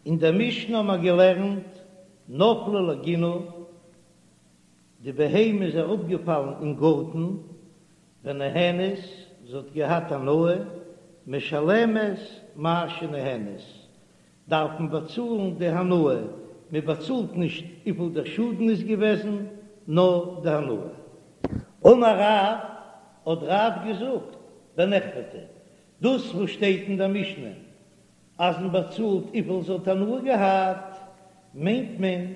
אין דער משנה האבן מיר געלערנט נפלה לגינה, די בהמה איז אראפגעפאלן אין גארטן, ונהנית, זי האט געהאט הנאה, משלמת מה שנהנית, דארף מען באצאלן די הנאה, מען באצאלט נישט וויפיל דער שאדן איז געוועזן, נאר די הנאה. אמר רב, האט רב געזאגט, בנחבטה, דאס וואס שטייט אין דער משנה אז מען באצאלט וויפיל זי האט הנאה געהאט, מיינט מען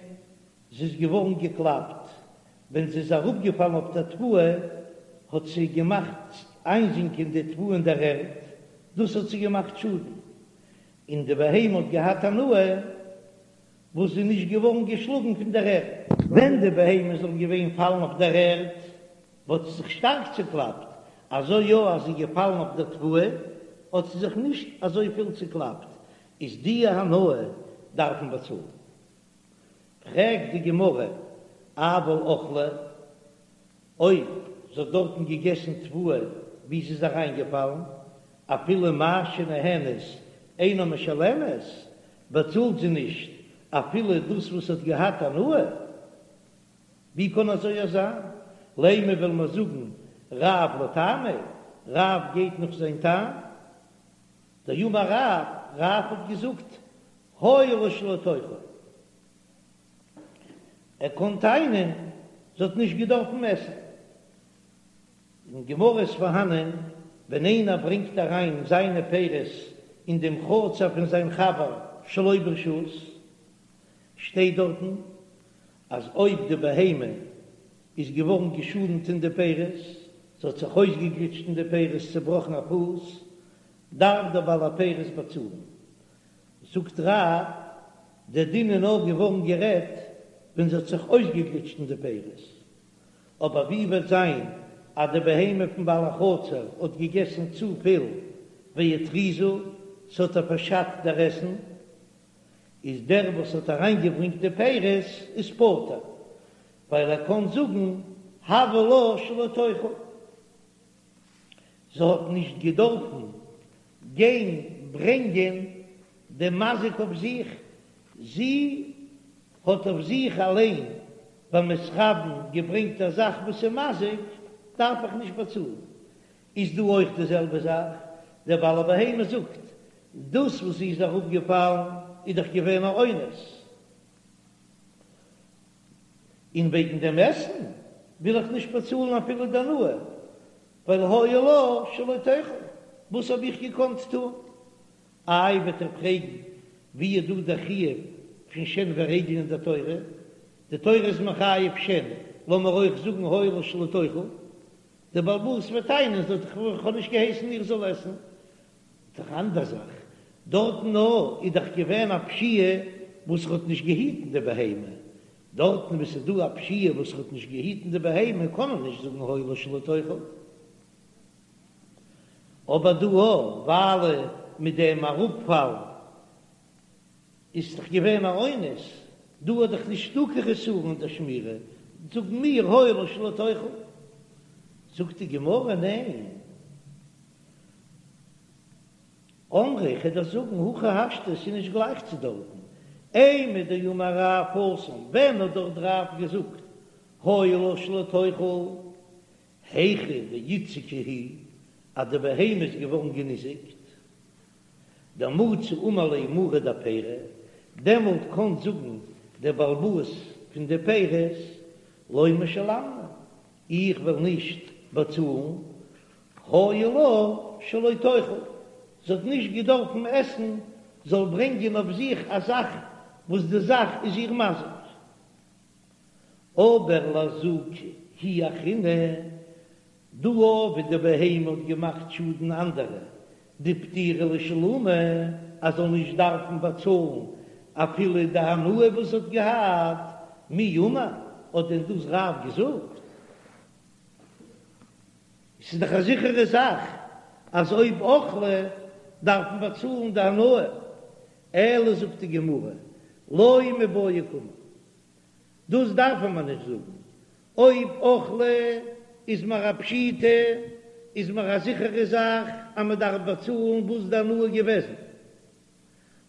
זי איז געווארן געקלאפט, ווען זי איז אראפגעפאלן אויף דער תבואה האט זי געמאכט איינזינקען די תבואה אין דער ערד, דאס האט זי געמאכט שאדן, און די בהמה האט געהאט הנאה וואס זי איז נישט געווארן געשלאגן פון דער ערד. ווען די בהמה זאל געווען פאלן אויף דער ערד וואלט זי זיך שטארק צוקלאפט, אזוי יא אז זי איז געפאלן אויף דער תבואה האט זי זיך נישט אזוי פיל צוקלאפט, איז די הנאה דארף מען באצאלן. פרעגט די גמרא, אבל אכלה, אויב זי האט דארטן געגעסן תבואה ווי זי איז אריינגעפאלן, אפילו מה שנהנית אינה משלמת, באצאלט זי נישט אפילו דאס וואס האט געהאט הנאה? ווי קען אזוי זיין? לימא וועל מיר זאגן רב לטעמיה, רב גייט נאך זיין טעם, דאמר רב, רב האט געזאגט היה לה שלא תאכל, ער קען טענה'ן זי האט נישט געדארפן עסן. אין גמרא איז פארהאנען ווען איינער ברענגט אריין זיינע פירות אין דעם חצר פון זיין חבר שלא ברשות, שטייט דארטן אז אויב די בהמה איז געווארן געשאדנט אין די פירות, זי האט זיך אויסגעגליטשט אין די פירות, צעבראכן א פוס, דארף דער בעל הפירות באצאלן. זאגט רב, דער דין איז נאר געווארן גערעדט ווען זי האט זיך אויסגעגליטשט אין די פירות, אבער ווי וועט זיין אז די בהמה פון בעל החצר האט געגעסן צופיל והתריזה, ס'האט איר פארשאדט דער עסן, איז דער וואס האט אריינגעברענגט די פירות איז פטור, ווייל ער קען זאגן הוה לה שלא תאכל. זי האט נישט געדארפן גיין ברענגען דעם מזיק אויף זיך, זי האט אויף זיך אליין במתכוין געברענגט א זאך וואס איז מזיק, דארף איך נישט באצאלן. איז דא אויך די זעלבע זאך, דער בעל הבהמה זאגט, דאס וואס זי איז אראפגעפאלן איז דאך געווען א אונס, און וועגן דעם עסן וויל איך נישט באצאלן אפילו די הנאה, ווייל היה לה שלא תאכל, וואס האב איך געקאנט טון? איי וועט איר פרעגן ווי איז דא דער חיוב פון שן ורגל אין דער תורה? די תורה איז מחייב שן, לאמיר אויך זאגן היה לה שלא תאכל, דער בעל הבית וועט טענה'ן זי האט דאך איך האב נישט געהייסן איר זאל עסן, דאך אנדער זאך, דארטן נאר איז דאך געווען א פשיעה וואס ער האט נישט געהיטן די בהמה, דארטן וואו ס'איז דא א פשיעה וואס ער האט נישט געהיטן די בהמה קען מען נישט זאגן היה לה שלא תאכל, אבער דא ווייל מיט דעם אראפפאל איז דאך געווען א אונס, דא איז דאך נישטא קיין חסרון אין דער שמירה, זאגן מיר היה לה שלא תאכל, זאגט די גמרא ניין. אמרי, כ'וועל דיר זאגן, הכי השתא, ס'איז נישט גלייך צו דארטן. אימור דאמר רב התם, ווען האט דארט רב געזאגט היה לה שלא תאכל, היכא דאיתזקא היא, אז די בהמה איז געווארן געניזיקט, דמצי אמר ליה מריה דפירי, דעמאלט קען זאגן דער בעל הבית פון די פירות, לא משלמנא, איך וועל נישט באצאלן, היה לה שלא תאכל, זי האט נישט געדארפן עסן, זאל ברענגען אויף זיך א זאך וואס די זאך איז איר מזיק. אבער לאזוקי היא אחרינא, דא ווי די בהמה האט געמאכט שאדן אנדערע, דפטירה לשלומי, אז זאל נישט דארפן באצאלן אפילו די הנאה וואס זי האט געהאט, מי אמר, האט דען דאס רב געזאגט? ס'איז דאך א זיכערע זאך אז אויב אכלה דארף מען באצאלן די הנאה, אלא זאגט די גמרא, לא מיבעיא קאמר, דאס דארף מען נישט זאגן, אויב אכלה איז מיר א פשיטא, איז מיר א זיכערע זאך אז מען דארף באצאלן וואס די הנאה געוועזן.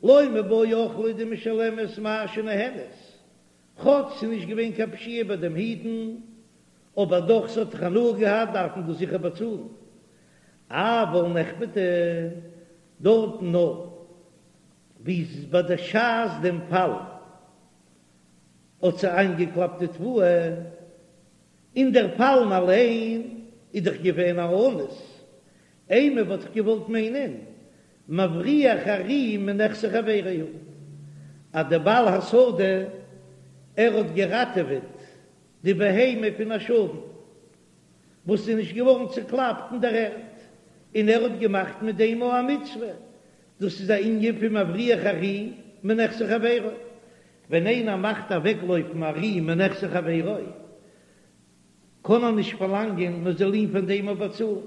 לא מיבעיא אוכלא דמשלמת מה שנהנית, כאטש ס'איז נישט געווען קיין פשיעה ביי דעם היטן, אבער דאך ס'האט דאך הנאה געהאט דארף מען דאס זיכער באצאלן. אבל נחבטה, דארטן נאר ווי ביי די שעת דעם פאל האט זי איינגעקלאפט די תבואה, און דער פאלן אליין איז דאך געווען א אונס, אימא וואלט איך געוואלט מיינען מבריח ארי מנכסי חברו הוא, אז דער בעל השדה ער האט געראטעוועט די בהמה פון א שאדן וואס איז נישט געווארן צוקלאפט אין דער ערד, און ער האט געמאכט מיט דעם א מצוה, דאס איז א ענין פון מבריח ארי מנכסי חברו, ווען איינער מאכט אוועקלויפן ארי מנכסי חברו, קען ער נישט פארלאנגען מען זאל אים פון דעם אפ באצאלן.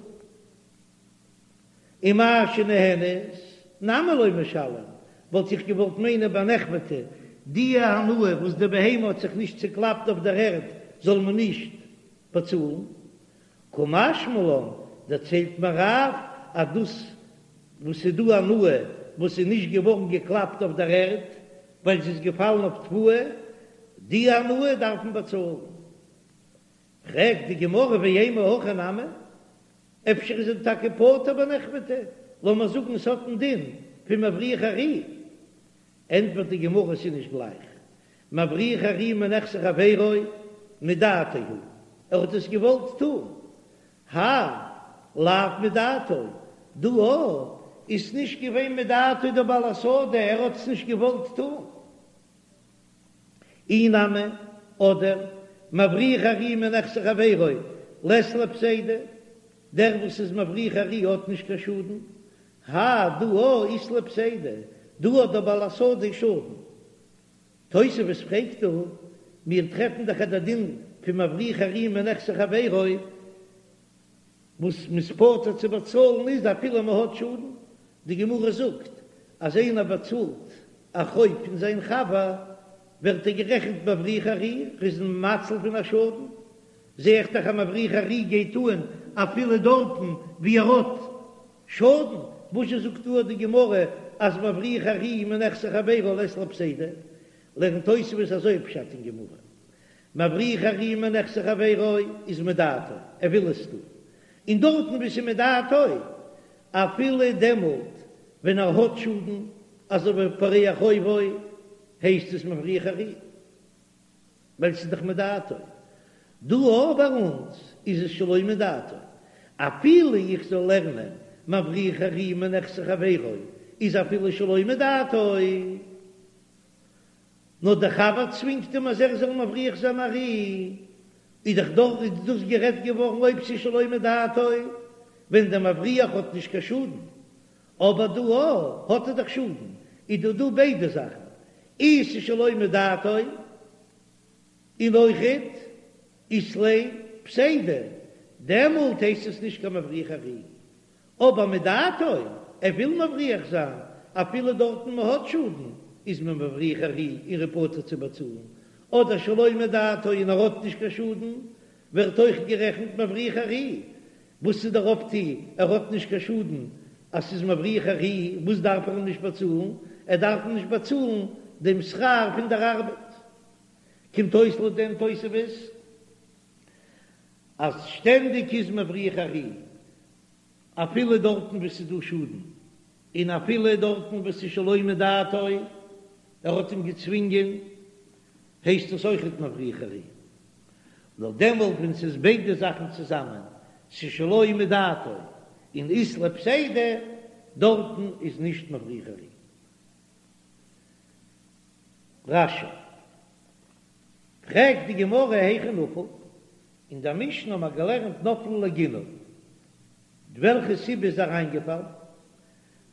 און מה שנהנית נמי לא משלם, וואלט איך געוואלט מיינען ביי נחבטה, די הנאה וואס די בהמה האט זיך נישט צוקלאפט אויף דער ערד זאל מען נישט באצאלן. קא משמע לן, דערציילט מיר רב אז דאס וואס איז דא הנאה וואס איז נישט געווארן געקלאפט אויף דער ערד ווייל זי איז געפאלן אויף תבואה, די הנאה דארף מען באצאלן. פרעגט די גמרא ואימא הכי נמי, אפשר איז ער טאקע פטור בנחבטה, לאמיר זאגן עס האט א דין פון מבריח ארי, ענטפערט די גמרא עס איז נישט גלייך, מבריח ארי מנכסי חברו מדעתו הוא, ער האט עס געוואלט טון, האי לאו מדעתו, דא איז נישט געווען מדעתו דער בעל השדה, ער האט עס נישט געוואלט טון. אי נמי, אדער, מבריח ארי מנכסי חברו, לית ליה פסידא, דער וואס איז מבריח ארי האט נישט קיין שאדן, האי דא אית ליה פסידא, דא האט דער בעל השדה שאדן. תוספות פרעגט דא, מיר טרעפן דאך אז דער דין פון מבריח ארי מנכסי חברו, וואס מ'איז פטור צו באצאלן איז אפילו מ'האט שאדן, די גמרא זאגט אז איינער באצאלט א חוב פון זיין חבר ווערט ער גערעכנט מבריח ארי, ער איז מציל פון א שאדן, זע איך דאך אז מבריח ארי גייט אן אפילו דארטן ווי ער האט שאדן, וואזשע זאגט דא די גמרא אז מבריח ארי מנכסי חברו לית ליה פסידא, לערנט תוספות אזוי פשט אין גמרא, מבריח ארי מנכסי חברו איז מדעתו, ער וויל עס טון, און דארטן וואו ס'איז מדעתו, אפילו דעמאלט ווען ער האט שאדן, אזוי ווי פורע חובו, הייסט עס מבריח ארי, ווייל ס'איז דאך מדעתו. דא אבער ביי אונז איז עס שלא מדעתו, אפילו איך זאל לערנען מבריח ארי מנכסי חברו איז אפילו שלא מדעתו. נאר דער חבר צווינגט אים אז ער זאל מבריח זיין ארי, איז דאך דארט איז דאס גערעדט געווארן אויב ס'איז שלא מדעתו, ווען דער מבריח האט נישט קיין שאדן, אבער דא האט ער דאך שאדן, איז דא דא ביידע זאכן, אי ס'איז שלא מדעתו, און אויכעט אית ליה פסידא, דעמאלט הייסט עס נישט קיין מבריח ארי, אבער מדעתו, ער וויל מבריח זיין, אפילו דארטן מען האט שאדן, איז מען מבריח ארי און ער איז פטור צו באצאלן, אדער שלא מדעתו און ער האט נישט קיין שאדן, ווערט אויך גערעכנט מבריח ארי. וואס איז דער אויפטו, ער האט נישט קיין שאדן אז ס'איז מבריח ארי, וואס דארף ער אים נישט באצאלן? ער דארף אים נישט באצאלן דעם שכר פון דער ארבעט. קומט אויס לויט דעם תוספות אז שטענדיג איז מבריח ארי אפילו דארטן וואו ס'איז דא שאדן, און אפילו דארטן וואו ס'איז שלא מדעתו, ער האט אים געצווינגען, הייסט עס אויכעט מבריח ארי. נאר דעמאלט ווען ס'איז ביידע זאכן צוזאמען, ס'איז שלא מדעתו און אית ליה פסידא, דארטן איז נישט מבריח ארי. רש"י. פרעגט די גמרא היכי נפל, אין דער משנה האט מען געלערנט נפלה לגינה, וועלכע סיבה איז אריינגעפאלן?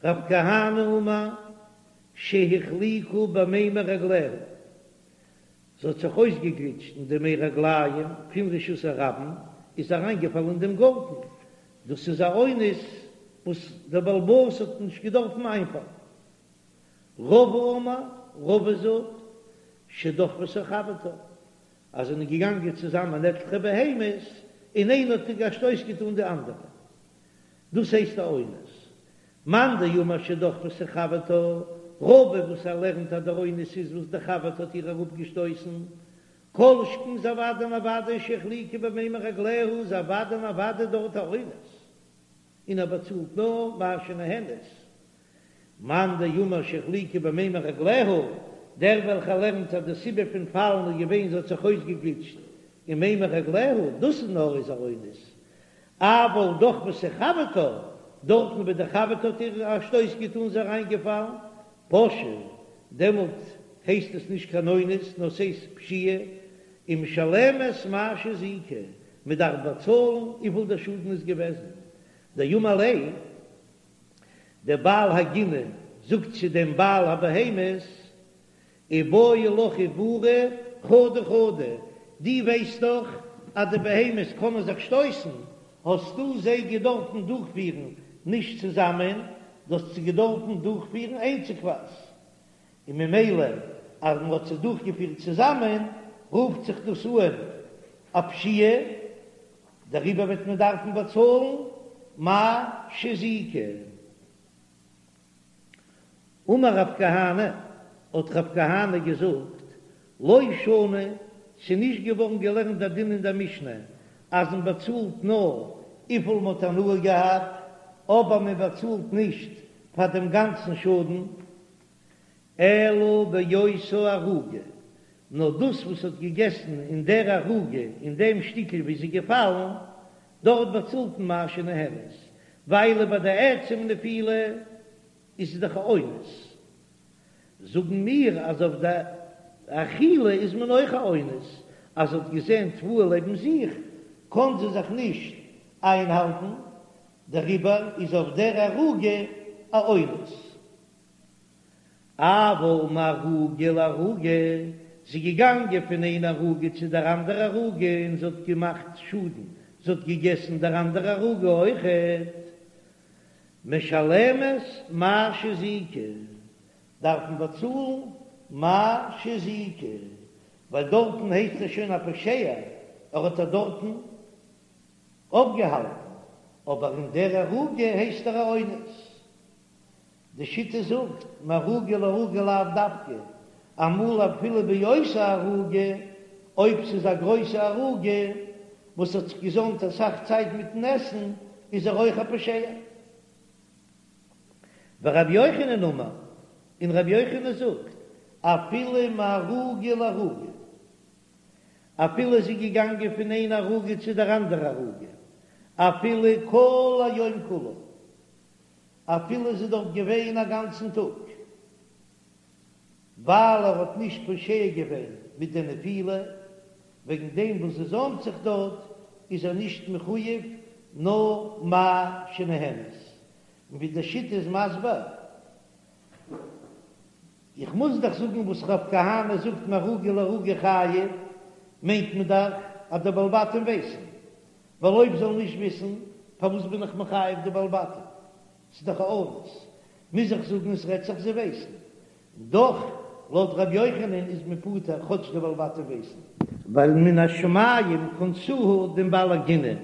רב כהנא אמר שהחליקה במימי רגליה, זי האט זיך אויסגעגליטשט אין די מי רגליים פון רשות הרבים, איז אריינגעפאלן אין דעם גארטן, דאס איז א אונס וואס דער בעל הבית האט נישט געדארפן איינפאלן. רבא אמר, רבא זאגט, שדחפתה חברתה, אז זענען געגאנגען צוזאמען עטליכע בהמות, און איינע האט א שטויס געטאן די אנדערע. דאס הייסט א אונס. מאן דאמר שדחפתה חברתה. רבא וואס ער לערנט אז דער אונס איז וואס די חבר'טע האט איר אראפגעשטויסן, כל שכן איז אוודאי און אוודאי שהחליקה במימי רגליה איז אוודאי און אוודאי דארט א אונס, און ער באצאלט נאר מה שנהנית. מאן דאמר שהחליקה במימי רגליה, דער וועלכער לערנט אז די סיבה פון פאלן איז געווען זי האט זיך אויסגעגליטשט אין מימי רגליה, דאס איז נאר איז א אונס, אבל דחפתה חברתה, דארטן ווי די חבר'טע האט איר א שטויס געטאן זי אריינגעפאלן, פשעה, דעמאלט הייסט עס נישט קיין אונס נאר ס'הייסט פשיעה, ומשלמת מה שהזיקה, מ'דארף באצאלן וויפיל דער שאדן איז געוועזן, דאמר ליה. דער בעל הגינה זאגט צו דעם בעל הבהמות, איבעי לך עבורי חדא חדא, דו ווייסט דאך אז די בהמות קענען זיך שטויסן, האסטו זיי געדארפן דורכפירן נישט צוזאמען, דו האסט זיי געדארפן דורכפירן איינציגווייז, און ממילא אז מען האט זיי דורכגעפירט צוזאמען רופט זיך דאס אן א פשיעה, דעריבער וועט מען דארפן באצאלן מה שהזיקה. אמר רב כהנא, האט רב כהנא געזאגט, לא שנו, ס'איז נישט געווארן געלערנט דער דין אין דער משנה אז מען באצאלט נאר וויפיל מען האט הנאה געהאט, אבער מען באצאלט נישט פאר דעם גאנצן שאדן, אלא באותה ערוגה, נאר דאס וואס האט געגעסן אין דער ערוגה, אין דעם שטיקל וואו זי איז געפאלן, דארט באצאלט מען מה שנהנית, ווייל ביי די עצם נפילה איז עס דאך א אונס. זאגן מיר אז אויף די אכילה איז מען אויך א אונס, אז זי האט געזען תבואה לעבן זיך, קען זי זיך נישט איינהאלטן, דעריבער איז אויף דער ערוגה א אונס. אבל מערוגה לערוגה, זי איז געגאנגען פון איין ערוגה צו דער אנדערע ערוגה און זי האט געמאכט שאדן, זי האט געגעסן דער אנדערע ערוגה אויכעט. משלמת מה שהזיקה, דארף מען באצאלן מה שהזיקה, ווייל דארטן הייסט ער שוין א פושע, ער האט איר דארטן אויפגעהאלטן, אבער אין דער ערוגה הייסט ער א אונס. די שיטה זאגט, מערוגה לערוגה לאו דווקא, אמאל אפילו באותה ערוגה, אויב ס'איז א גרויסע ערוגה וואס האט זיך געזאמט אסאך צייט מיטן עסן, איז ער אויך א פושע. ורבי יוחנן אמר, און רבי יוחנן זאגט, אפילו מערוגה לערוגה, אפילו זי איז געגאנגען פון איין ערוגה צו דער אנדערע ערוגה, אפילו כל היום כולו, אפילו זי איז דארט געווען א גאנצן טאג, ווייל ער האט נישט פושע געווען מיט די נפילה, וועגן דעם וואס זי זוימט זיך דארט איז ער נישט מחויב נאר מה שנהנית, און ווי די שיטה איז מסביר, איך מוז דאך זאגן וואס רב כהנא זאגט מערוגה לערוגה חייב, מיינט מען דאך אז די בעלי בתים ווייסן, ווייל אויב זאל נישט וויסן, פארוואס בין איך מחייב די בעלי בתים? ס'איז דאך א אונס. מוז איך זאגן עס רעדט זיך זיי ווייסן. דאך, לויט ר' יוחנן איז מען פטור כאטש די בעלי בתים ווייסן. ווייל מן השמים קנסוה דעם בעל הגינה,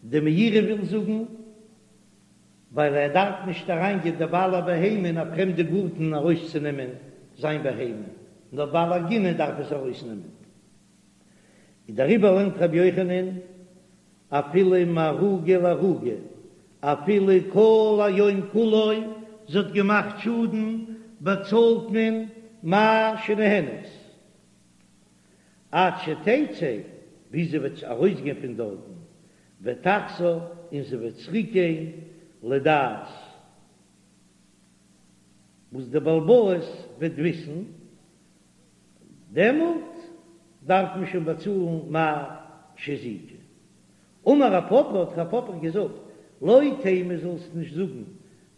די מאירי וויל זאגן, ווייל ער דארף נישט אריינגיין די בעל הבהמה אין א פרעמדע גארטן ארויסצונעמען זיין בהמה, נאר בעל הגינה דארף עס ארויסנעמען. און דעריבער לערנט רבי יוחנן אפילו מערוגה לערוגה, אפילו כל היום כולו זי האט געמאכט שאדן, באצאלט מען מה שנהנית, עד שתצא, ביז זי וועט ארויסגיין פון דארטן, ותחזור, און זי וועט צוריקגיין לדעת, וואס דער בעל הבית וועט וויסן, דעמאלט דארף מען שוין באצאלן מה שהזיקה. אמר רב פפא, האט רב פפא געזאגט, לא תימא זאלסט נישט זאגן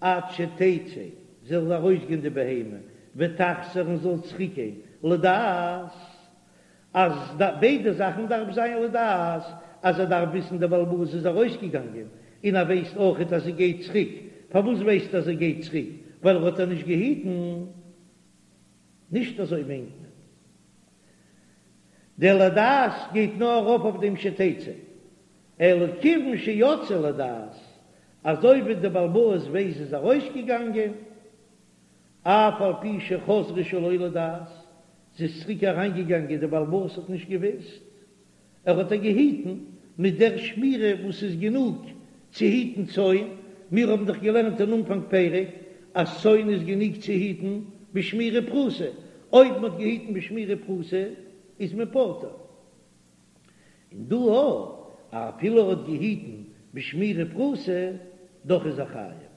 עד שתצא, זאל ארויסגיין די בהמה, ותחזור און זאל צוריקגיין, לדעת, אז ביידע זאכן דארף זיין לדעת, אז ער דארף וויסן דער בעל הבית איז ארויסגעגאנגען, און ער ווייסט אויכעט אז זי גייט צוריק, פארוואס ווייסט ער אז זי גייט צוריק? ווייל ער האט איר נישט געהיטן. נישט אזוי מיינט מען. דער לדעת גייט נאר ארויף אויף דעם שתצא, אלא כיוון שיצאה לדעת, אזוי ווי דער בעל הבית ווייסט זי איז ארויסגעגאנגען. אף על פי שחזרה שלא לדעת, זי איז צוריק אריינגעגאנגען, דער בעל הבית האט נישט געוואוסט, ער האט איר געהיטן מיט דער שמירה וואס איז גענוג צו היטן צאן, מיר האבן דאך געלערנט אין אנפאנג פרק אז צאן איז גענוג צו היטן בשמירה פחותה, אויב מען האט געהיטן בשמירה פחותה איז מען פטור. און דא אויך, אפילו ער האט געהיטן בשמירה פחותה, דאך איז ער חייב.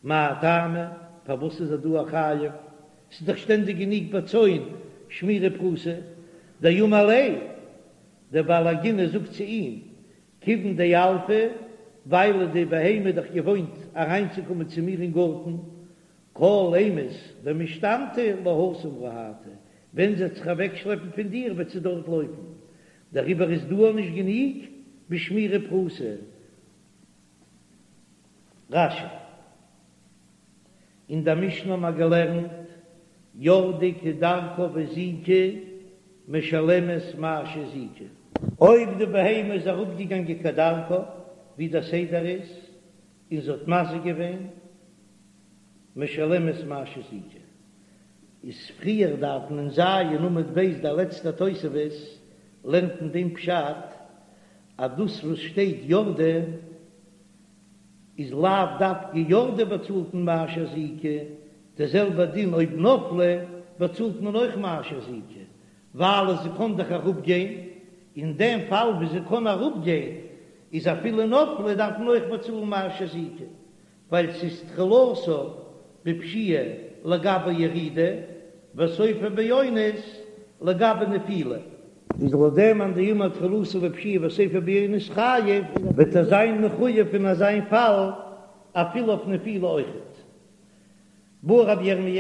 מאי טעמא? פארוואס איז ער דא א חייב? ס'איז דאך שטענדיג גענוג ביי צאן שמירה פחותה. דאמר ליה, דער בעל הגינה זאגט צו אים, כיוון דילפא, ווייל די בהמה איז דאך געוואוינט אריינצוקומען צו מיר אין גארטן, כל אימת דמשתמטא להתם רהטא, ווען זי וועט זיך אוועקשלעפן פון דיר וועט זי דארט לויפן, דעריבער איז דא נישט גענוג בשמירה פחותה. רש"י, אין דער משנה האבן מיר געלערנט, ירדה כדרכה והזיקה משלמת מה שהזיקה. אויב די בהמה איז אראפגעגאנגען כדרכה, ווי דער סדר איז, און זי האט מזיק געווען, משלמת מה שהזיקה. איז פריער דארטן אין ז' עמוד ב' דער לעצטער תוספות לערנט אין דעם פשט אז דאס וואס שטייט ירדה איז לאו דווקא ירדה באצאלט מען מה שהזיקה, די זעלבע דין אויב נפלה באצאלט מען אויך מה שהזיקה, ווייל זי קען דאך אראפ גיין, אין דעם פאל ווי זי קען אראפ גיין איז אפילו נפלה דארף מען אויך באצאלן מה שהזיקה, ווייל ס'איז תחילתה בפשיעה לגבי ירידה וסופה באונס לגבי נפילה. איז לויט דעם מאן דאמר תחילתה בפשיעה וסופה באונס חייב, וועט ער זיין מחויב אין אזיין פאל אפילו אויף נפילה אויכעט. בעי רבי ירמי',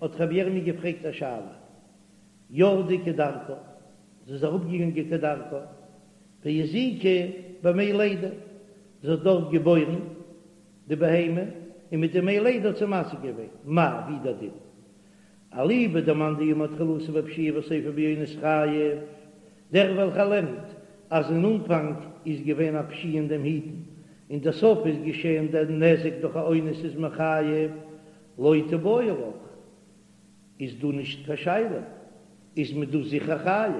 האט רבי ירמי' געפרעגט א שאלה, ירדה כדרכה, זי איז אראפגעגאנגען כדרכה, והזיקה במי לידה, זי האט דארט געבוירן די בהמה, און מיט די מי לידה האט זי מזיק געווען, מהו, ווי דער דין? אליבא דמאן דאמר תחילתה בפשיעה וסופה באונס חייב, דער וועלכער לערנט אז אין אנפאנג איז געווען א פשיעה אין דעם היטן, און דער סוף איז געשען דער נזק דורך א אונס איז מען חייב, לא תיבעי לך, איז דא נישט קיין שאלה, איז מען דא זיכער חייב,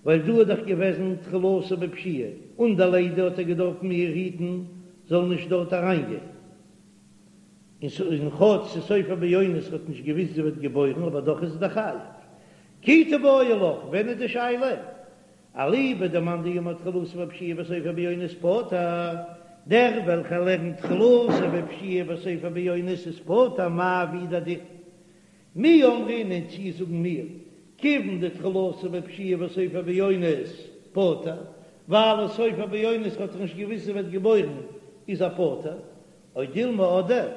ווייל דא איז דאך געוועזן תחילתה בפשיעה, און די לידה האט ער געדארפן איר היטן זאל נישט דארט אריינגיין, און כאטש ס'איז סופה באונס האט נישט געוויסט זי ווערט געבוירן אבער דאך איז ער דאך חייב. כי תיבעי לך, ווען איז די שאלה? אליבא דמאן דאמר תחילתה בפשיעה וסופה באונס פטור, דער וועלכער לערנט תחילתה בפשיעה וסופה באונס איז פטור מהו, ווי דער דין. מי אמרינן צי זאגן מיר, כיוון דתחילתה בפשיעה וסופה באונס פטור, ווייל סופה באונס האט ער נישט געוויסט זי ווערט געבוירן איז ער פטור, או דילמא אדער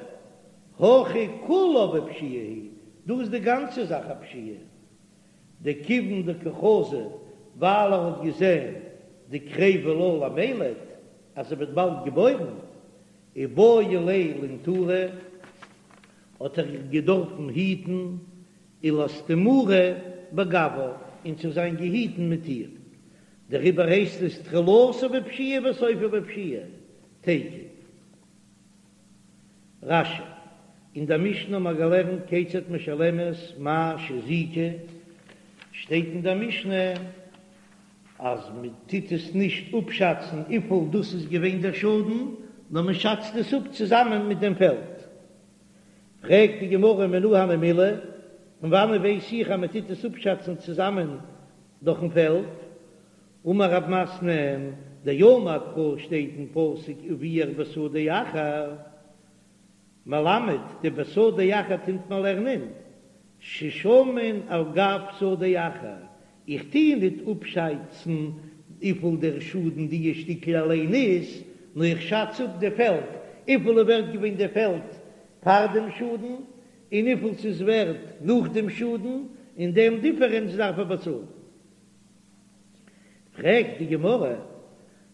הכא כולה בפשיעה היא, דא איז די גאנצע זאך א פשיעה. דכיון דקא חזי ווייל ער האט געזען דקריבא לה למילד אז זי ווערט באלד געבוירן, איבעי ליה לינטורי האט ער געדארפן היטן ולאסתמורי בגויה און צו זיין געהיטן מיט איר, דעריבער הייסט עס תחילתה בפשיעה וסופה בפשיעה, תיקו. רש"י, אין דער משנה האבן מיר געלערנט כיצד משלמת מה שהזיקה, שטייט אין דער משנה אז מען טוט עס נישט אפשאצן וויפיל דאס איז געווען דער שאדן, נאר מען שאצט עס אפ צוזאמען מיט דעם פעלד. פרעגט די גמרא מנא הני מילי, פון וואנען ווייס איך אז מען טוט עס אפשאצן צוזאמען דורכן פעלד? אמר רב מתנה, דאמר קרא שטייט אין פסוק ובער בשדה אחר, מלמד די בשדה אחר טוט מען לערנען ששמין על גב שדה אחר, איך טוה ניט אפשאצן וויפיל דער שאדן דיע שטיקל אליין איז, נאר איך שאץ אפ די פעלד, וויפיל איז ווערט געווען די פעלד פאר דעם שאדן, און וויפיל ס'איז ווערט נאך דעם שאדן, און דעם דיפערענץ דארף ער באצאלן. פרעגט די גמרא,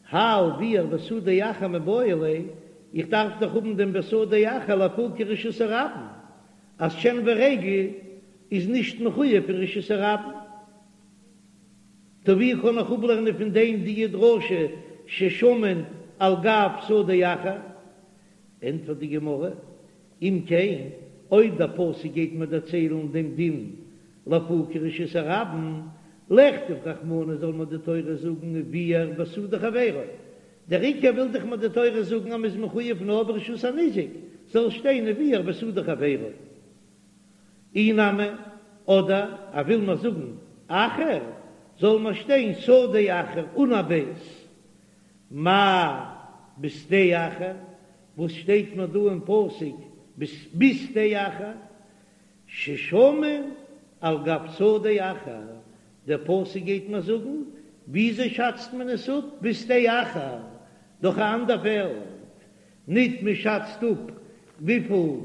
האי ובער בשדה אחר מיבעי ליה, איך דארף דאך האבן דעם בשדה אחר לאפוקי רשות הרבים, אז שן ורגל איז נישט מחויב פון רשות הרבים, טא ווי קען איך אפלערנען פון דעם די דרשה ששמין על גב שדה אחר? ענטפערט די גמרא, אם כן. אויב דער פסוק גייט מיר דערציילן דעם דין לאפוקי רשות הרבים, לכתוב רחמנא זאל מיר די תורה זאגן וביער בשדה חבירו, דער עיקר וויל דאך מיר די תורה זאגן אז מ'איז מחויב נאר ברשות הניזק, זאל שטיין וביער בשדה חבירו. אי נמי, אדער ער וויל מיר זאגן אחר, זאל מיר שטיין שדה אחר אן א בית. מאי בשדה אחר, וואס שטייט מיר דא אין פסוק בשדה אחר? ששמין על גב שדה אחר, דער פסוק גייט מיר זאגן וויאזוי שאצט מען עס אפ בשדה אחר, דורך א אנדער פעלד, ניט מען שאצט אפ וויפיל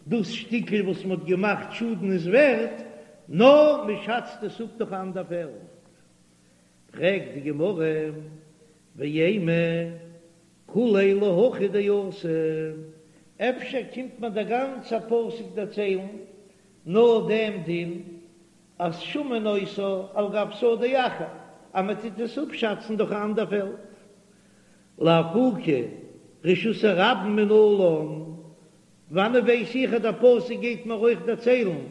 דאס שטיקל וואס מען האט געמאכט שאדן איז ווערט, נאר מען שאצט עס אפ דורך א אנדער פעלד. פרעגט די גמרא, ואימא כוליה להכי דאתא, אפשר קומט מיר דער גאנצער פסוק דערציילן נאר דעם דין אז שמין אותה על גב שדה אחר, אז מען טוט עס אפשאצן דורך א אנדער פעלד, לאפוקי רשות הרבים מנלן, וואנען ווייס איך אז דער פסוק גייט מיר אויך דערציילן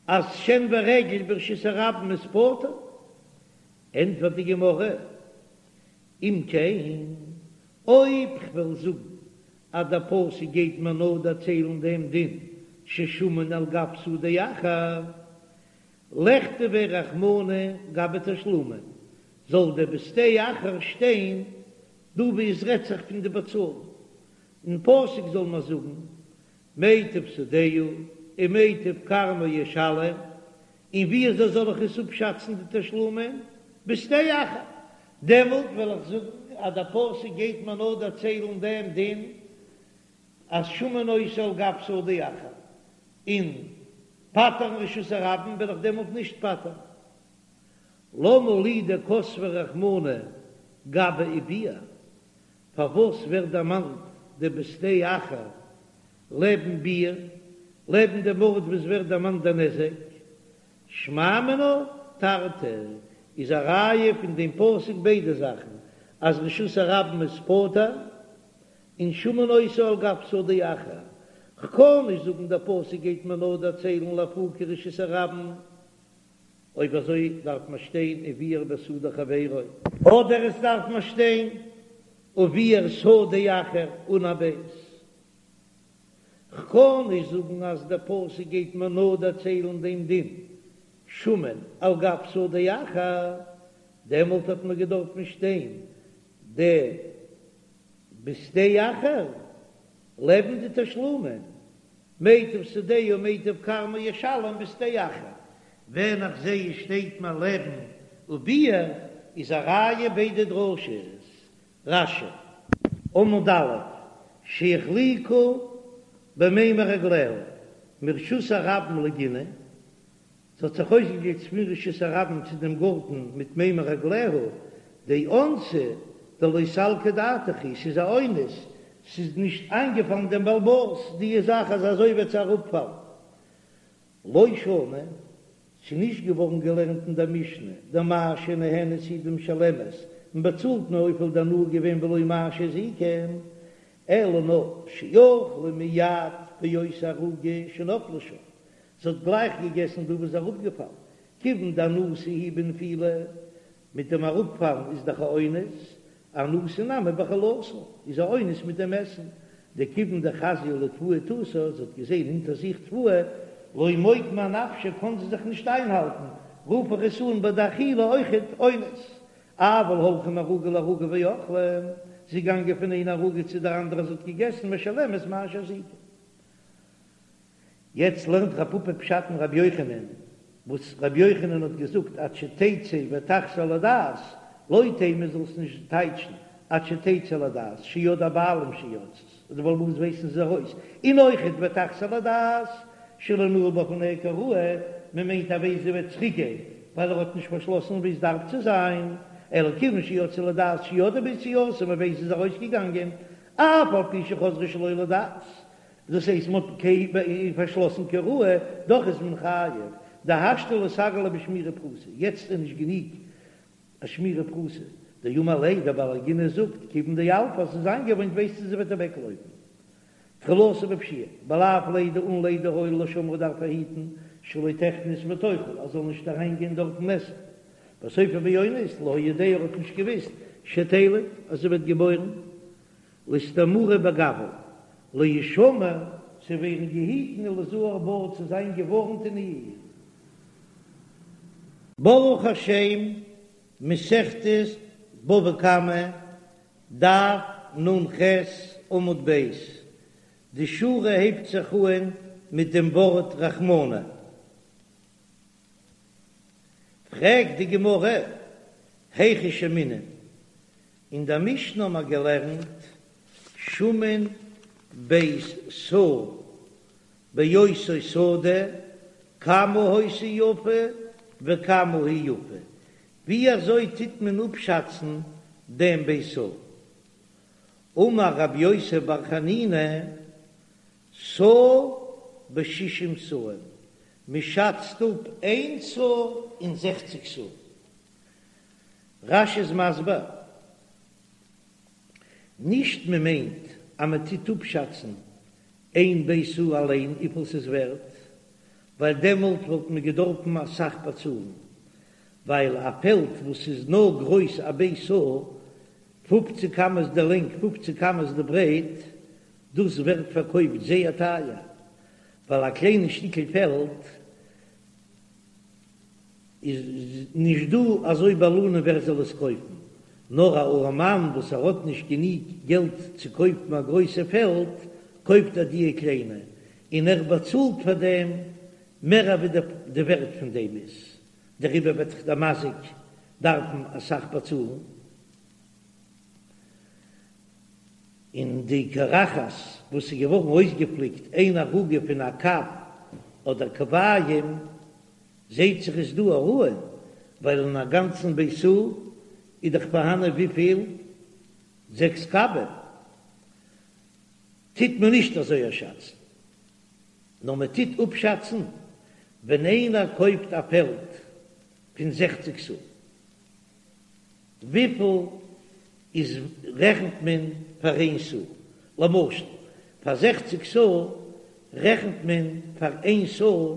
אז שן ורגל ברשות הרבים איז פטור? ענטפערט די גמרא, אם כן, אויב כ'וועל זאגן אז דער פסוק גייט מיר נאר דערציילן דעם דין ששמין על גב שדה אחר, לכתביה רחמנא גבי תשלומין, זאל דער בשדה אחר שטיין דא וואו עס רעדט זיך פון די באצאלן, אין פסוק זאל מען זאגן מיטב שדהו ומיטב כרמו ישלם, און ווי אזוי זאל איך עס אפשאצן די תשלומין? בשדה אחר. דעמאלט וועל איך זאגן אז דער פסוק גייט מיר נאר דערציילן דעם דין אז שמין אותה על גב שדה אחר, און פטר'ן רשות הרבים וועל איך דעמאלט נישט פטר'ן. למה לי דכתביה רחמנא גבי וביער? פארוואס ווערט דערמאנט די בשדה אחר לעבן ביער, לעבן דעם ארט וואס ווערט דערמאנט דער נזק? שמע מינה תרתי איז א ראיה פון דעם פסוק ביידע זאכן, אז רשות הרבים איז פטור און שמין אותה על גב שדה אחר. כ'קען נישט זאגן דער פסוק גייט מיר נאר דערציילן לאפוקי רשות הרבים. אויב אזוי דארף מען שטיין וביער בשדה חברו. אדער עס דארף מען שטיין וביער שדה אחר אן א בית. כ'קען נישט זאגן אז דער פסוק גייט מיר נאר דערציילן דעם דין שמין על גב שדה אחר, דעמאלט האט מען געדארפן שטיין די בשדה אחר לעבן די תשלומין, מיטב שדהו ומיטב כרמו ישלם בשדה אחר, ווען איך זעה עס שטייט מיר לעבן וביער איז א ראיה ביידע דרשות. רש"י. עמוד א', שהחליקה במימי רגליה, מרשות הרבים לגינה, ס'האט זיך אויסגעגליטשט פון רשות הרבים צו דעם גארטן מיט מימי רגליה, דאונסא דלא סלקא דעתך היא, ס'איז א אונס, ס'איז נישט איינגעפאלן דעם בעל הבית די זאך אז אזוי וועט זי אראפפאלן. לא שנו, ס'איז נישט געווארן געלערנט אין דער משנה, דמה שנהנית היא דמשלמת, מען באצאלט נאר וויפיל די הנאה געווען ולא מה שהזיקה, אלא נאר שאכלה מיד באותה ערוגה שנפלה שם, זי האט גלייך געגעסן דא וואס איז אראפגעפאלן, כיוון דאנוסה היא בנפילה, מיט דעם אראפפאלן איז דאך א אונס, אנוסה נמי באכילתה, איז א אונס מיט דעם עסן, דכיוון דחזיא לתבואה תותה, זי האט געזען אונטער זיך תבואה, לא מוקמה אנפשה קען זי זיך נישט איינהאלטן, רוף איך עס אן ביי די אכילה אויכעט אונס, אבל הלכה מערוגה לערוגה ואכלה, זי איז געגאנגען פון איין ערוגה צו דער אנדערע זי האט געגעסן משלמת מה שהזיקה. יעצט לערנט רב פפא פשט אין רבי יוחנן, וואס רבי יוחנן האט געזאגט עד שתצא ותחזור לדעת, לא תימא זאלסט נישט טייטשן עד שתצא לדעת, שידעו הבעלים שיצאת, אז די בעל הבית ווייסן ס'איז ארויס, און אויכעט ותחזור לדעת, שלא נעל בפניה כראוי, מען מיינט אז ווען זי וועט צוריק גיין, ווייל ער האט נישט פארשלאסן ווי עס דארף צו זיין, אלא כיוון שיצאה לדעת שידעו ביציאתה, מען ווייסט זי איז ארויסגעגאנגען, אף על פי שחזרה שלא לדעת, דאס הייסט מ'האט פארשלאסן כראוי, דאך איז מען חייב, דהשתא לא סגי לה בשמירה פחותה, יעצט איז נישט גענוג א שמירה פחותה, דאמר ליה דער בעל הגינה זאגט כיוון דילפא אז ס'איז איינגעוואוינט ווייסטו זי וועט אוועקלויפן. תחילתו בפשיעה, בלאו לידה אן לידה היה לו לשומרה דארף ער היטן שלא תכנס ותאכל אז זאל נישט אריין גיין דארטן עסן, וסופו באונס לא היה יודע ער האט נישט געוויסט שתלד אז זי ווערט געבוירן לאיסתמורי בגווה להישמר צו ווערן געהיטן וליזהר בה צו זיין געווארנט אין איר. ברוך השם, מסכת בבא קמא, דף נ"ח עמוד ב', די שורה הייבט זיך אהן מיט דעם ווארט רחמנא. פרעגט די גמרא, היכי שיימינן, אין דער משנה האבן מיר געלערנט שמין בית סאה באותה שדה, כמה היתה יפה וכמה היא יפה, ווי אזוי טוט מען אפשאצן דעם בית סאה? אמר רבי יוסי בר חנינא, סאה בשישים סאים, מען שאצט אפ איין סאה אין זעכציג סאה. רש"י איז מסביר, נישט מען מיינט אז מען טוט אפשאצן איין בית סאה אליין וויפיל ס'איז ווערט, ווייל דעמאלט וואלט מען געדארפן אסאך באצאלן, ווייל א פעלד וואס איז נאר גרויס א בית סאה, פופציג אמות די לענג פופציג אמות די ברייט, דאס ווערט פארקויפט זייער טייער, ווייל א קליינע שטיקל פעלד איז נישט דא אזוי בעלנים ווער זאל עס קויפן, נאר א ארעמאן וואס ער האט נישט גענוג געלט צו קויפן א גרויסע פעלד, קויפט ער דיע קליינע, און ער באצאלט פאר דעם מער אווי די ווערט פון דעם איז, דעריבער וועט דאך דער מזיק דארפן אסאך באצאלן. און די קרחת וואס איז געווארן אויסגעפליקט איין ערוגה פון א קב אדער קביים, זעהט זיך איז דא א ראיה, ווייל אין א גאנצן בית סאה איז דאך פארהאנען וויפיל? זעקס קבים. טוט מען נישט אזוי אפשאצן, נאר מען טוט אפשאצן ווען איינער קויפט א פעלד פון זעכציג סאה, וויפיל איז רעכנט מען פאר איין סאה? למשל פאר זעכציג סאה רעכנט מען פאר איין סאה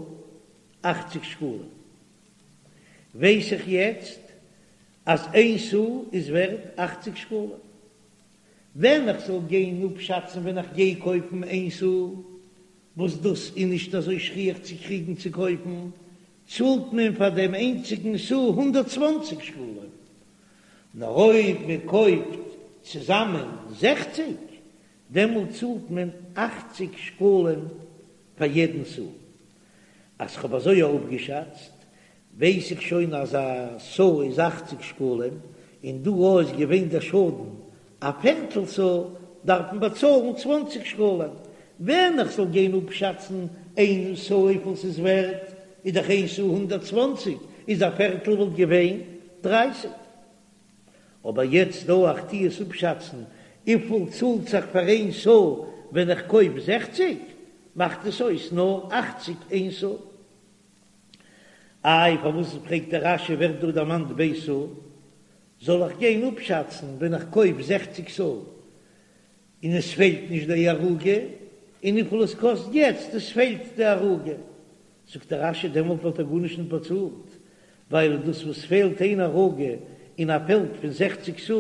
אכציג שקלים, ווייס איך יעצט אז איין סאה איז ווערט אכציג שקלים, ווען איך זאל גיין אפשאצן ווען איך גיי קויפן איין סאה, וואס דאס איז נישט אזוי שכיח צו קריגן צו קויפן, צאלט מען פאר דעם איינציגן סאה 120 שקלים, נאר אויב מען קויפט צוזאמען זעכציג, דעמאלט צאלט מען אכציג שקלים פאר יעדן סאה. אז כ'האב אזוי אפגעשאצט, ווייס איך שוין אז א סאה איז אכציג שקלים, און דא אויך איז געווען דער שאדן א פערטל סאה, דארף מען באצאלן צוואנציג שקלים. ווען איך זאל גיין אפשאצן איין סאה וויפיל ס'איז ווערט, איז דאך איין סאה 120, איז א פערטל וואלט געווען דרייסיג. אבער יעצט דא איך טו עס אפשאצן וויפיל צאלט זיך פאר איין סאה ווען איך קויף זעכציג, מאכט עס אויס נאר אכציג איין סאה. איי פארוואס פרעגט דער רש"י ווערט דא דערמאנט בית סאה? זאל איך גיין אפשאצן ווען איך קויף זעכציג סאה און עס פעלט נישט די ערוגה, און וויפיל עס קאסט יעצט עס פעלט די ערוגה? זאגט דער רש"י דעמאלט וואלט ער גארנישט נישט באצאלט, ווייל דאס וואס פעלט איין ערוגה אין א פעלד פון זעכציג סאה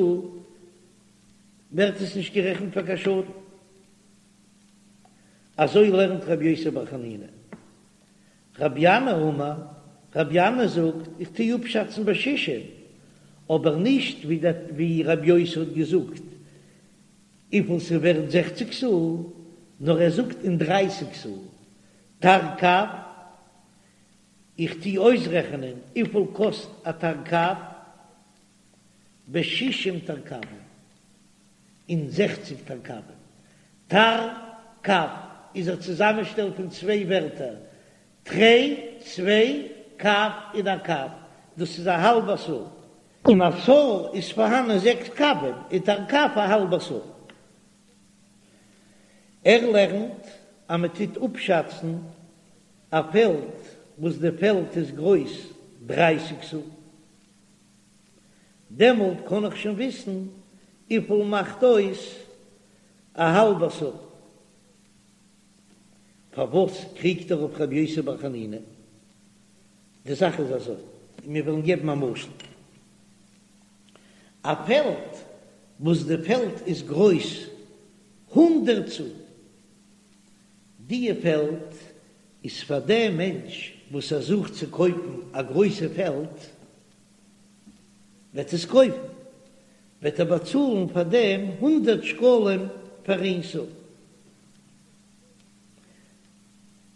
ווערט עס נישט גערעכנט פאר קיין שאדן. אזוי לערנט רבי יוסי בר חנינא. רבי ינאי אמר, רבי ינאי זאגט, איך טו אפשאצן בשישים, אבער נישט ווי רבי יוסי האט געזאגט וויפיל ס'ווערט זעכציג סאה, נאר ער זאגט אין דרייסיג סאה, תרקב, איך טו אויסרעכענען וויפיל קאסט א תרקב, בשישים תרקבים, אין זעכציג תרקבים. תרקב איז א צוזאמענשטעל פון צוויי ווערטער, תרי, צוויי, קב און א קב, דאס איז א האלבע סאה. אין א סאה איז פארהאנען זעקס קבים, איז תרקב א האלבע סאה. ער לערנט אז מען טוט אפשאצן א פעלד וואס די פעלד איז גרויס דרייסיג סאה. דעמאלט קען איך שוין וויסן וויפיל מאכט אויס א האלבע סאה. פארוואס קריגט ער אויף רבי יוסי בר חנינא? די זאך איז אזוי, מיר וועלן געבן א משל, א פעלד וואס די פעלד איז גרויס הונדרעט סאה, דיע פעלד איז פאר דעם מענטש וואס ער זוכט צו קויפן א גרויסע פעלד, וועט עס קויפן, וועט ער באצאלן פאר דעם הונדרעט שקלים פאר איין סאה.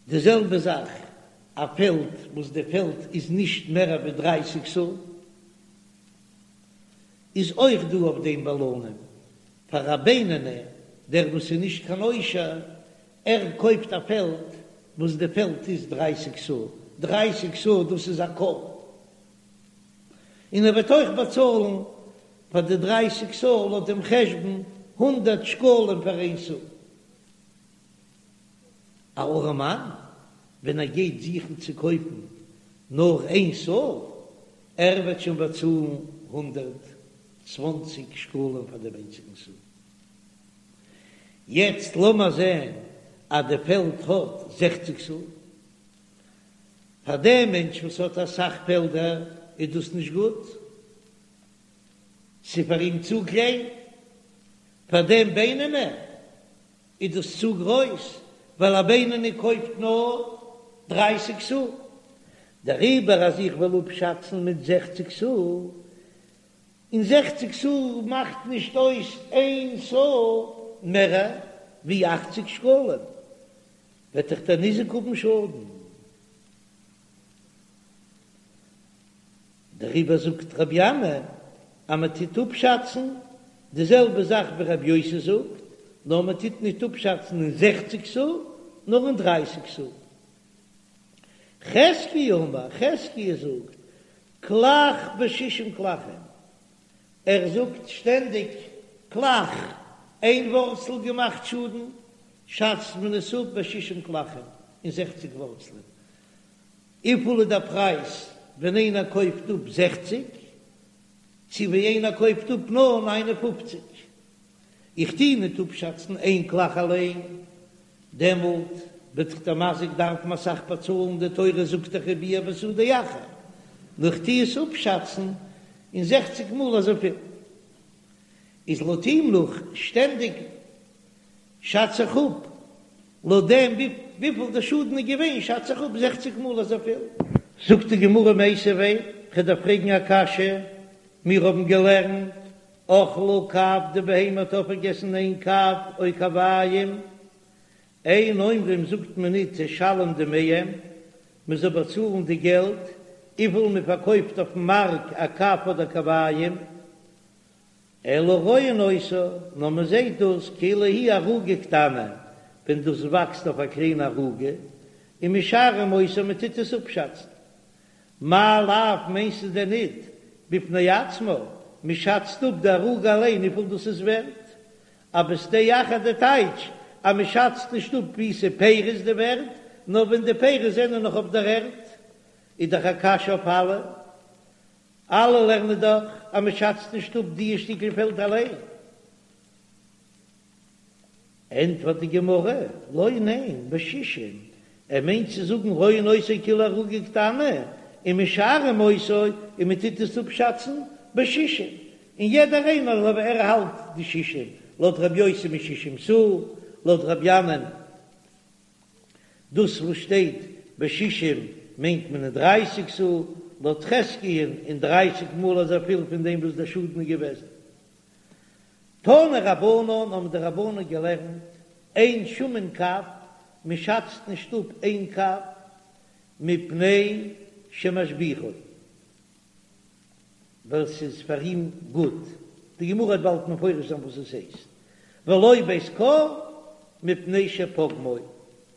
די זעלבע זאך א פעלד וואס די פעלד איז נישט מער ווי דרייסיג סאה, איז אויך דא אויף דעם בעלנים, פאר א בינוני, דער וואס איז נישט קיין עושר, ער קויפט א פעלד וואס די פעלד איז דרייסיג סאה, דרייסיג סאה דאס איז א כור, און ער וועט אויך באצאלן פאר די דרייסיג סאה לויט דעם חשבון הונדערט שקלים פאר איין סאה. א ארעמאן ווען ער גייט זוכן צו קויפן נאר איין סאה, ער וועט שוין באצאלן 120 שקלים פאר דעם איינציגן סאה. יעצט לאמער זען אז די פעלד האט זעכציג סאה. פאר דעם מענטש וואס האט אסאך פעלדער איז דאס נישט גוט, ס'איז פאר אים צו קליין. פאר דעם בינוני איז דאס צו גרויס, ווייל א בינוני קויפט נאר דרייסיג סאה. דעריבער אז איך וועל אפשאצן מיט זעכציג סאה, און זעכציג סאה מאכט נישט אויס איין סאה מער ווי אכציג שקלים, וועט דאך דער ניזק האבן שאדן. דעריבער זאגט רבי ינאי אז מען טוט אפשאצן די זעלבע זאך ווי רבי יוסי זאגט, נאר מען טוט נישט אפשאצן אין זעכציג סאה, נאר אין דרייסיג סאה. חזקיה אמר, חזקיה זאגט, קלח בשישים קלחים, ער זאגט שטענדיג קלח, איין ווארצל געמאכט שאדן, שאצט מען עס אפ בשישים קלחים, אין זעכציג ווארצלען. וויפיל איז דער פרייז ווען איינער קויפט אפ זעכציג, צו ווי איינער קויפט אפ נאר ניין און פופציג? איך טוה ניט אפשאצן איין קלח אליין, דעמאלט וועט דאך דער מזיק דארפן אסאך באצאלן, די תורה זאגט דאך וביער בשדה אחר, נאר איך טוה עס אפשאצן אין זעכציג מאל אזויפיל. איז לויט אים נאך שטענדיג שאץ איך אפ לויט דעם וויפיל די שאדן איז געווען שאץ איך אפ זעכציג מאל אזויפיל. זאגט די גמרא מיתיבי, כ'דארף פרעגן א קשיא, מיר האבן געלערנט אכלה קב די בהמה האט אויפגעגעסן איין קב או קביים, אין אומרים זאגט מען ניט תשלם דמיהם, מען זאל באצאלן די געלט וויפיל מען פארקויפט אויפן מארק א קב אדער קביים, אלא רואין אותה, נאר מען זעט דאס כאילו היא ערוגה קטנה, ווען דאס וואקסט אויף א קליינע ערוגה, ומשערים אותה מען טוט עס אפשאצן. מאי לאו מיינסטו דען ניט בפני עצמה, מען שאצט אפ די ערוגה אליין וויפיל דאס איז ווערט, א בשדה אחר די טייטש אז מען שאצט נישט אפ ווי ס'איז פירות די ווערט, נאר ווען די פירות זענען נאך אויף דער ערד, איז דאך א קשיא אויף אלע. אלע לערנען דאך אז מען שאצט נישט אפ די שטיקל פעלד אליין. ענטפערט די גמרא, לא ניין, בשישים, ער מיינט צו זאגן רואין אותה כאילו ערוגה קטנה, ומשערים אותה, און מען טוט עס אפשאצן בשישים, און יעדער איינער לויט ווי ער האלט די שישים, לויט רבי יוסי משישים סאה, לויט רבי ינאי'ן דאס וואס שטייט בשישים מיינט מען אין דרייסיג סאה, לויט חזקיה'ן אין דרייסיג מאל אזויפיל פון דעם וואס דער שאדן איז געוועזן. תנו רבנן האבן די רבנן געלערנט, אין שמין קב, מען שאצט נישט אפ איין קב, מפני שמשביחו, ווייל ס'איז פאר אים גוט, די גמרא וועט באלד מפרש זיין וואס עס הייסט, ולא בית כור מפני שפוגמו,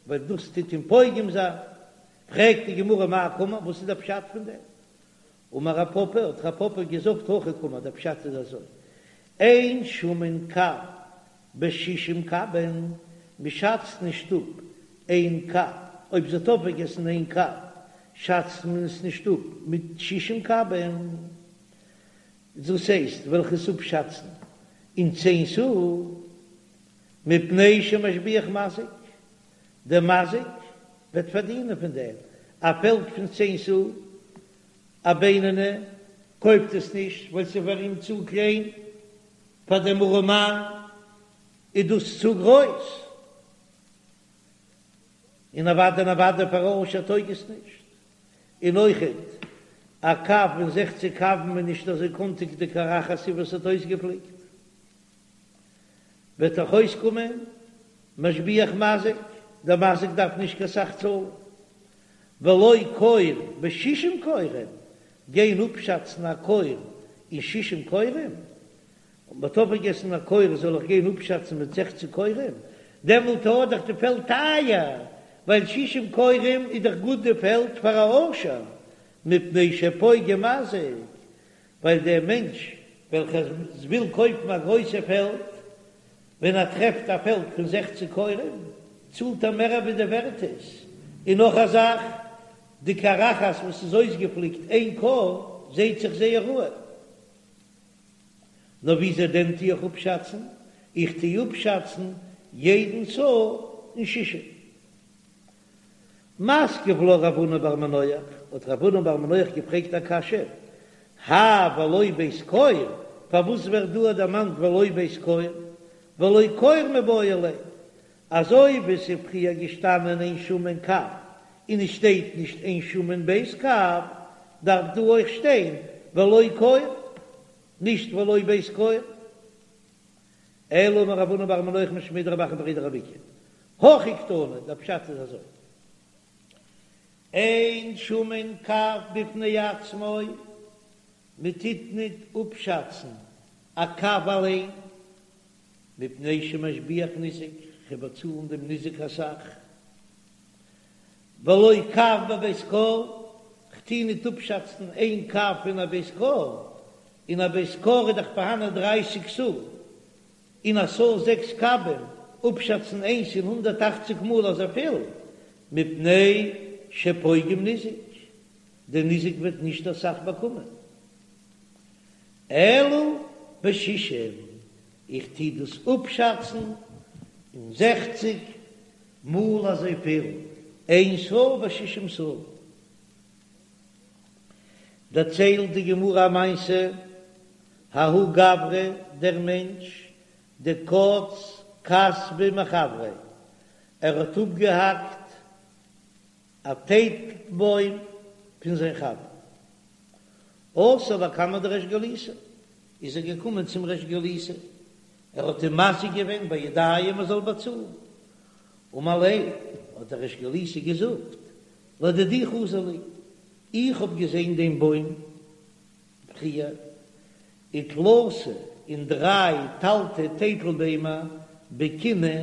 ווייל דאס טוט אים פוגם זיין, פרעגט די גמרא מאי קאמר, וואס איז דער פשט פון דעם? אמר רב פפא, האט רב פפא געזאגט הכי קאמר, דער פשט איז אזוי, אין שמין קב בשישים קבין, מען שאצט נישט אפ איין קב, אויב זי האט אויפגעגעסן איין קב, שאצט מען עס נישט אפ מיט שישים קבין, דאס הייסט וועל איך עס אפשאצן אין צען סאה, מפני שמשביח מזיק, דער מזיק. וועט פארדינען פון דעם. א פעלד פון צען סאה, א בינוני קויפט עס נישט ווייל ס'איז פאר אים צו קליין, פאר דעם ארעמאן איז דאס צו גרויס, און אוודאי און אוודאי פאר א עושר טויג עס נישט. און אויכעט א קב אין זעכציק קבין איז נישט אזוי קאנטיג די קרחת וואס האט אויסגעפליקט. וועט דאך אויסקומען משביח מזיק, דער מזיק דארף נישט קיין סך צאלן, ולא כור בשישים כורים, גיין אפשאצן א כור אין שישים כורים, און מ'האט אויפגעגעסן א כור זאל איך גיין אפשאצן מיט זעכציק כורים, דעמאלט איז דאך די פעלד טייער, ווייל שישים כורים איז דאך גוט די פעלד פאר א עושר, מפני שפוגם מזיק, ווייל דער מענטש וועלכער וויל קויפן א גרויסע פעלד, ווען ער טרעפט א פעלד פון זעכציק כורים, צאלט ער מער ווי די ווערט איז. און נאך א זאך, די קרחת וואס איז אויסגעפליקט איין כור, זעהט זיך זייער ראוי. נאר וויאזוי דען טו איך אפשאצן? איך טו אפשאצן יעדן סאה אין שישים. מתקיף לה רב הונא בר מנוח, האט רב הונא בר מנוח געפרעגט א קשיא, האי ולא בית כור, פארוואס ווערט דא דערמאנט ולא בית כור, ולא כור מיבעי ליה, אזוי ווי ס'איז פריער געשטאנען אין שמין קב און עס שטייט נישט אין שמין בית קב, דארף דא אויך שטיין ולא כור, נישט ולא בית כור. אלא אמר רב הונא בר מנוח משמיה דרב אחא בריה דרב איקא, הכי קתני, דער פשט איז אזוי, אין שמין קב בפני עצמו, מען טוט ניט אפשאצן א קב אליין, מפני שמשביח ניזק, כ'וועל באצאלן דעם ניזק אסאך, ולא קב בבית כור, כ'טו ניט אפשאצן איין קב פון א בית כור, אין א בית כור איז דאך פארהאנען דרייסיג סאה, און א סאה זעקס קבים, אפשאצן איינס אין הונדערט אכציג מאל אזויפיל, מפני שפוגם ניזק, דער ניזק וועט נישט אסאך באקומען. אלא בשישים, איך טו דאס אפשאצן אין זעכציג מאל אזויפיל, איין סאה בשישים סאה. דערציילט די גמרא א מעשה, ההוא גברא, דער מענטש, דקץ כסבא מחבריה, ער האט אפגעהאקט א טייטלבוים פון זיין חבר. אתא לקמיה דריש גלותא, איז ער געקומען צום ריש גלותא, ער האט אים מזיק געווען בידיים ער זאל באצאלן. אמר ליה, האט דער ריש גלותא געזאגט, לדידי חזי לי, איך האב געזען דעם בוים פריער, ותלתא און דריי תלתי טייטל ביימער בקינא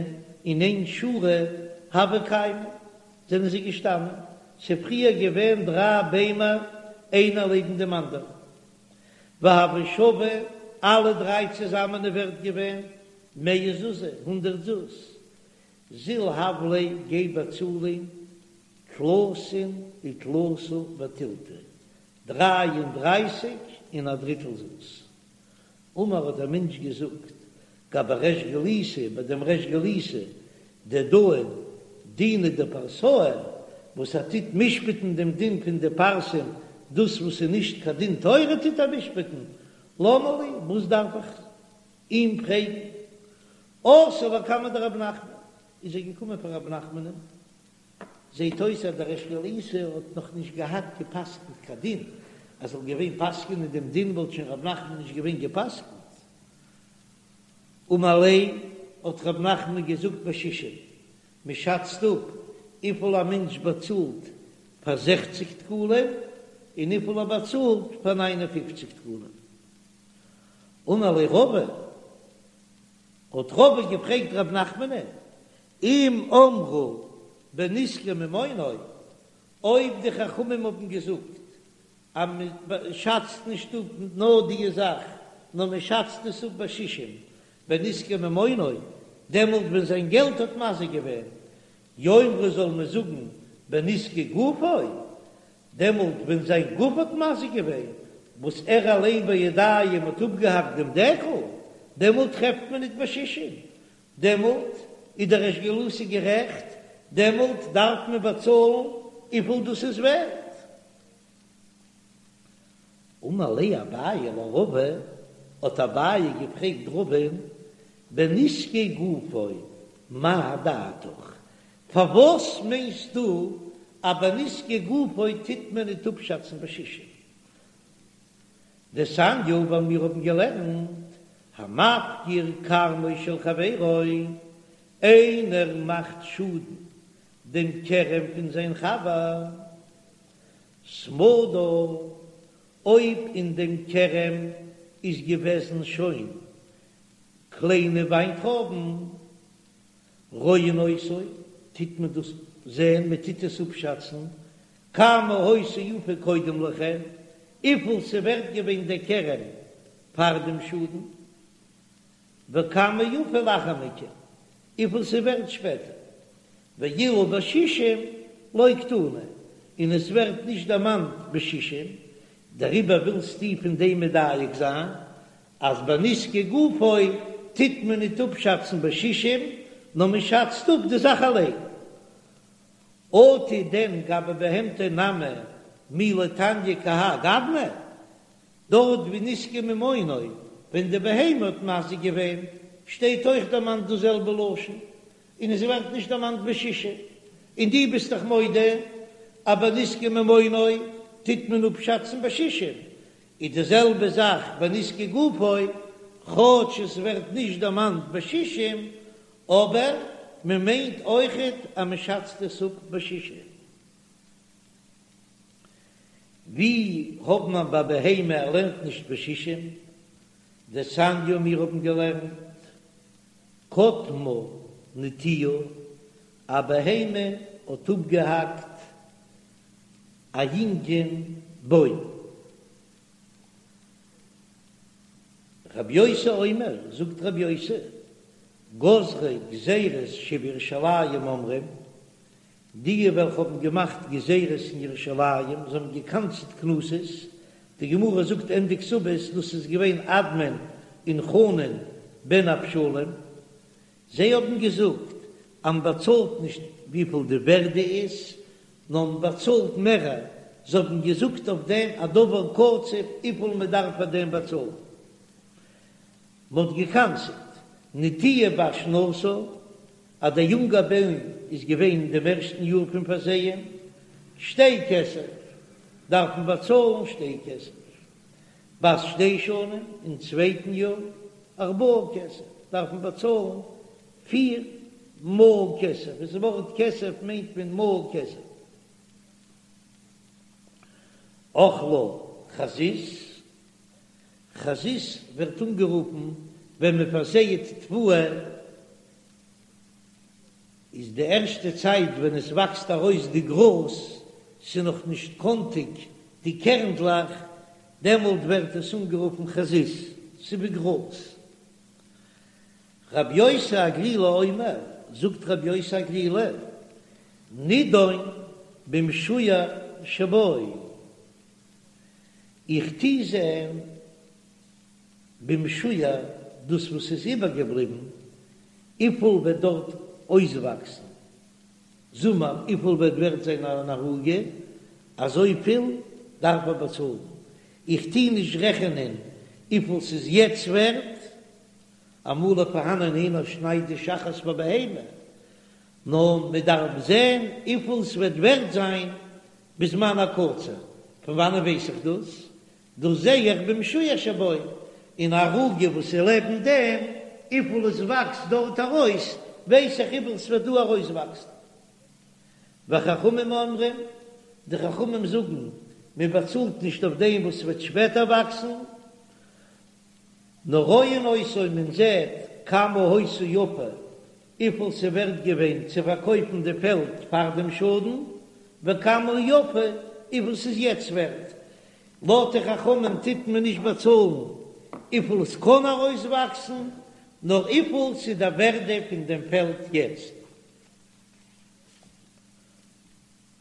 אין איין שורה הוו קיימי זענען זיי געשטאנען, ס'איז פריער געווען דריי ביימער איינער לעבן דעם אנדערן, והוו שוו אלע דריי צוזאמען איז ווערט געווען מאה זוזי, הונדערט זוז, זיל הב ליה גיי באצאל אים תלתין ותלתא ותילתא, דריי און דרייסיג און א דריטל זוז. אמר האט דער מענטש געזאגט, גבי ריש גלותא, ביי דעם ריש גלותא, דדאין דינא דפרסאי, וואס ער טוט משפט'ן דעם דין פון די פרסים, דאס וואס איז נישט קיין דין תורה טוט ער משפט'ן, למה לי, וואס דארף איך אים פרעגן? אתא לקמיה דרב נחמן, איז ער געקומען פאר רב נחמנ'ן, זעהט אויס אז דער ריש גלותא האט נאך נישט געהאט געפסקנט קיין דין, אז זאל געווען פסק'נען דעם דין וואלט שוין רב נחמן נישט געווען געפסקנט. אמר ליה, האט רב נחמן געזאגט בשישים, מען שאצט אפ וויפיל א מענטש באצאלט פאר זעכציג דקלים און וויפיל ער באצאלט פאר ניין און פופציג דקלים. אמר ליה רבא, האט רבא געפרעגט רב נחמנ'ן, אם אמרו בנזקי ממונו, אויב די חכמים האבן געזאגט אז מען שאצט נישט אפ נאר די זאך, נאר מען שאצט עס אפ בשישים בנזקי ממונו, דעמאלט ווען זיין געלט האט מזיק געווען, יאמרו זאל מען זאגן בנזקי גופו, דעמאלט ווען זיין גוף האט מזיק געווען, וואס ער אליין בידיים האט אפגעהאקט דעם דקל, דעמאלט טרעפט מען ניט בשישים, דעמאלט איז דער ריש גלותא גערעכט. דעמאלט דארף מען באצאלן וויפיל דאס איז ווערט. אמר ליה אביי לרבא, האט אביי געפרעגט רבא'ן, בנזקי גופו מאי דעתך, פארוואס מיינסטו אז בנזקי גופו טוט מען ניט אפשאצן בשישים? דתניא ווייל מיר האבן געלערנט המפקיר כרמו של חברו, איינער מאכט שאדן דעם כרם פון זיין חבר, סמדר, אויב אין דעם כרם איז געוועזן שוין קליינע וויינטרויבן, רואין אותו, טוט מען דאס זען, מען טוט עס אפשאצן, כמה היתה יפה קודם לכן, וויפיל ס'ווערט געווען דער כרם פאר דעם שאדן, וכמה יפה לאחר מכן, וויפיל ס'ווערט שפעטער, ואילו בשישים לא קתני, און עס ווערט נישט דערמאנט בשישים, דעריבער ווילסטו פון דעם מדייק זיין אז ביי נזקי גופו טוט מען ניט אפשאצן בשישים, נאר מען שאצט אפ די זאך אליין. אטו דען גבי בהמתו נמי מי לא תניא כהאי גוונא, דארט ווי נזקי ממונו, ווען די בהמה האט מזיק געווען, שטייט אויך דערמאנט דאס זעלבע לשון, און עס ווערט נישט דערמאנט בשישים, און דו ביסט דאך מודה אז ביי נזקי ממונו טוט מען אפשאצן בשישים, איז די זעלבע זאך ביי נזקי גופו, כאטש עס ווערט נישט דערמאנט בשישים, אבער מען מיינט אויכעט אז מען שאצט עס אפ בשישים. ווי האט מען ביי בהמה ער לערנט נישט בשישים? דתניא מיר האבן געלערנט קטמה נטיעה, א בהמה האט אפגעהאקט א יונגען בוים. רבי יוסי אומר, זאגט רבי יוסי, גוזרי גזירות שבירושלים אומרים, די וועלכע האבן געמאכט גזירות אין ירושלים, זיי האבן געקנס'ט קנסות, די גמרא זאגט ענדע כתובות, דאס איז געווען אדמון און חנן בן אבשלום, זיי האבן געזאגט אז מען באצאלט נישט וויפיל די ווערדע איז, נאר מען באצאלט מערער, זיי האבן געזאגט אויף דעם א דבר קצוב וויפיל מען דארף פאר דעם באצאלן. מען האט געקנס'ט נטיעה בת שנתה, אז דער יונגער בוים איז געווען אין דעם ערשטן יאר פון פארזייען, שתי כסף, דארף מען באצאלן שתי כסף, בת שתי שנים, אין צווייטן יאר, ארבעה כסף, דארף מען באצאלן פיר מעה כסף, דאס ווארט כסף מיינט מען מעה כסף. אכלה חזית, חזית ווערט אנגערופן ווען מען פארזייעט תבואה, איז די ערשטע צייט ווען עס וואקסט ארויס די גראז, ס'איז נאך נישט קאנטיג די קערנדלעך, דעמאלט ווערט עס אנגערופן חזית, ס'איז ווי גראז. רבי יוסי הגלילי אומר, זאגט רבי יוסי הגלילי, נידון במשוייר שבו, איך טוה זען במשוייר דאס וואס איז איבערגעבליבן, וויפיל וועט דארט אויסוואקסן זומער, וויפיל וועט ווערט זיין אן ערוגה, אזויפיל דארף ער באצאלן, איך טוה נישט רעכענען וויפיל ס'איז יעצט ווערט, אמאל איז פארהאנען איינער שניידט די שחת פאר בהמה, נאר מען דארף זען וויפיל ס'וועט ווערט זיין בזמן הקציר, פון וואנען ווייס איך דאס? דאס זע איך במשוייר שבו, אין ערוגה וואס איז לעבן דעם, וויפיל עס וואקסט דארט ארויס, ווייס איך וויפיל ס'וועט דא ארויסוואקסן. וחכמים אומרים, די חכמים זאגן, מען באצאלט נישט אויף דעם וואס ס'וועט שפעטער וואקסן, נאר רואין אותו מען זעט כמה היתה יפה, וויפיל ס'ווערט געווען צו פארקויפן די פעלד פאר דעם שאדן, וכמה יפה, וויפיל ס'איז יעצט ווערט. לויט די חכמים טוט מען נישט באצאלן וויפיל עס קען ארויסוואקסן, נאר וויפיל ס'איז די ווערדע פון דעם פעלד יעצט.